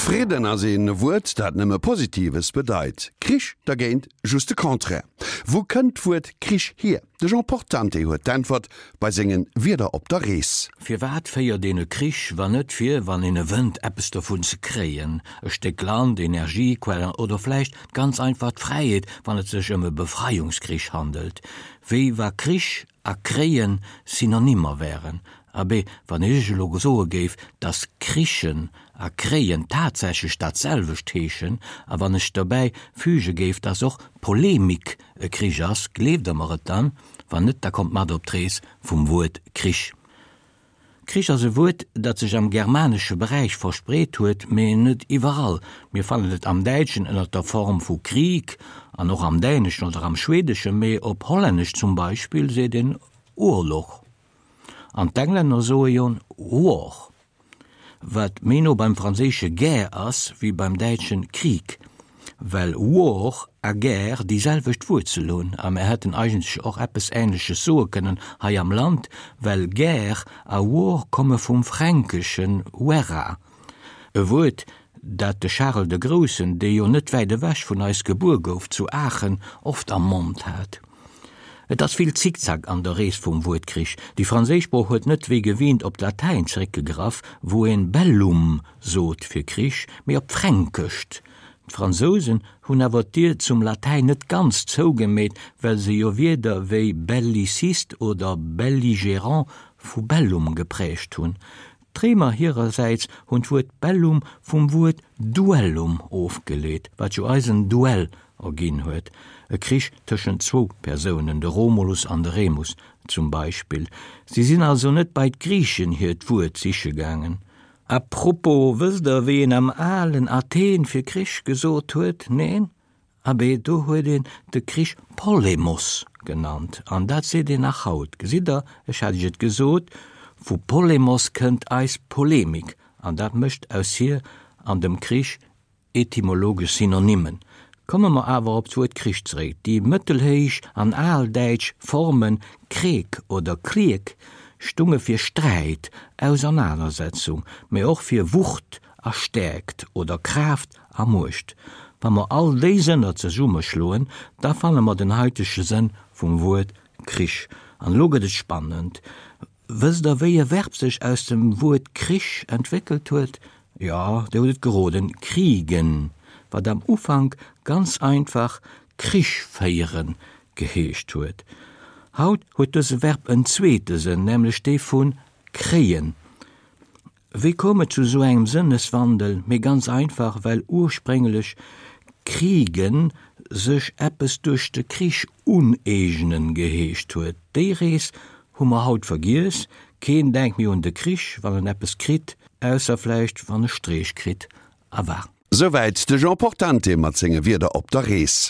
Fridden ass een Wuert, dat nëmme Positives bedeit. Krich dergéint just de Contraire. Wou kënnt d'Wuert Krich hier? De Jean Portante huet d'Äntwert bei sengen Wierder op der Rees. Firwat féiert een e Krich, wann net fir, wann een e wënnt, eppes dovun ze kréien? E Stéck Land, Energiequellen oder vläicht ganz einfach d'Fräiheet, wann et sech ëm e Befreiungskrich handelt. Wéi wa Krich a kréien Synonymer wären. Abee, wann ech elo soe géif, dass krichen a kréien tatsächlech dat selwecht heeschen, a wann ech dobäi füge géif, dass och Polemik e Krich ass, gleeft Der mer et dann? Wann net, da kommt mat op d'Rees vum Wuert Krich. Krich ass e Wuert, dat sech am germanesche Beräich verspreet huet, mee net iwwerall. Mir fannen et am Däitschen ënner der Form vu Krieg an och am Däneschen oder am Schweedeschen, mee op Hollännesch zum Beispill seet een Oorlog. An d'Englänner soe jo War. Wat méi no beim franséische Guerre ass wéi beim däitschen Krieg, well War a Guerre déi selwecht Wuerzel hunn. A mer hätten eigentlech och eppes Ähnleches soe kënnen hei am Land, well Guerre a War komme vum fränkeschen Werra, e Wuert, dat de Charel de Groussen, dee jo net wäit ewech vun eis gebuer gouf, zu Aachen, oft am Mond hat. Et ass vill Zickzack an der Rees vum Wuert Krich. Déi franséisch Sprooch huet net wéi gewinnt op d'Latäin zeréckgegraff, wou een bellum sot fir Krich, mee op d'Fränkescht. D'Fransousen hunn awer d'Dier zum Latäin net ganz zougemeet, well se jo Wierder wéi belliciste oder belligérant vu bellum geprägt hunn. D'Réimer hirersäits hunn d'Wuert bellum vum Wuert duellum ofgeleet, wat jo eisen Duell erginn huet, e Krich tëschent zwou Persounen, de Romulus an de Remus zum Beispill. Si sinn also net bei d'Griichen hiert Wuert siche gaangen. A propos, wësst der, wéi een am alen Athen fir Krich gesot huet? Neen? Abee, do huet een de Krich Polemos genannt, an dat seet een nach haut. Gesitt Der, ech hat Iech et gesot, vu Polemos kënnt eis Polemik, an dat mécht aus hir an dem Krich etymologesch Synonymen. Komme mer awer op d'Wuert Krich zeréck. Déi mëttelhéich an aldäitsch Forme Kreek oder Kriek stunge fir Sträit, Ausernanersetzung, mee och fir Wucht a Stäerkt oder Kraaft a Muecht. Wa mer all déi Sënner zesummeschloen, da fanne mer den haitege Sënn vum Wuert Krich. An elo gëtt et spannend. Wësst der, wéi e Verb sech aus dem Wuert Krich entwéckelt huet? Jo, dir hutt et geroden, kriegen, wat am Ufank ganz einfach Krich féieren geheescht huet. Haut huet dëse Verb en zweete Sënn, nämlech dee vu kréien. Wéi koum et zu esou engem Sënneswandel? Mee ganz einfach, well ursprénglech kriegen sech eppes duerch de Krich uneegnen geheescht huet. Déi Rees hu mer haut vergiess, keen denkt méi un de Krich, wann en eppes kritt, ausser vläicht wann e Streech kritt. A war. Souwäit de Jean Portante mat senge Wierder op der Rees.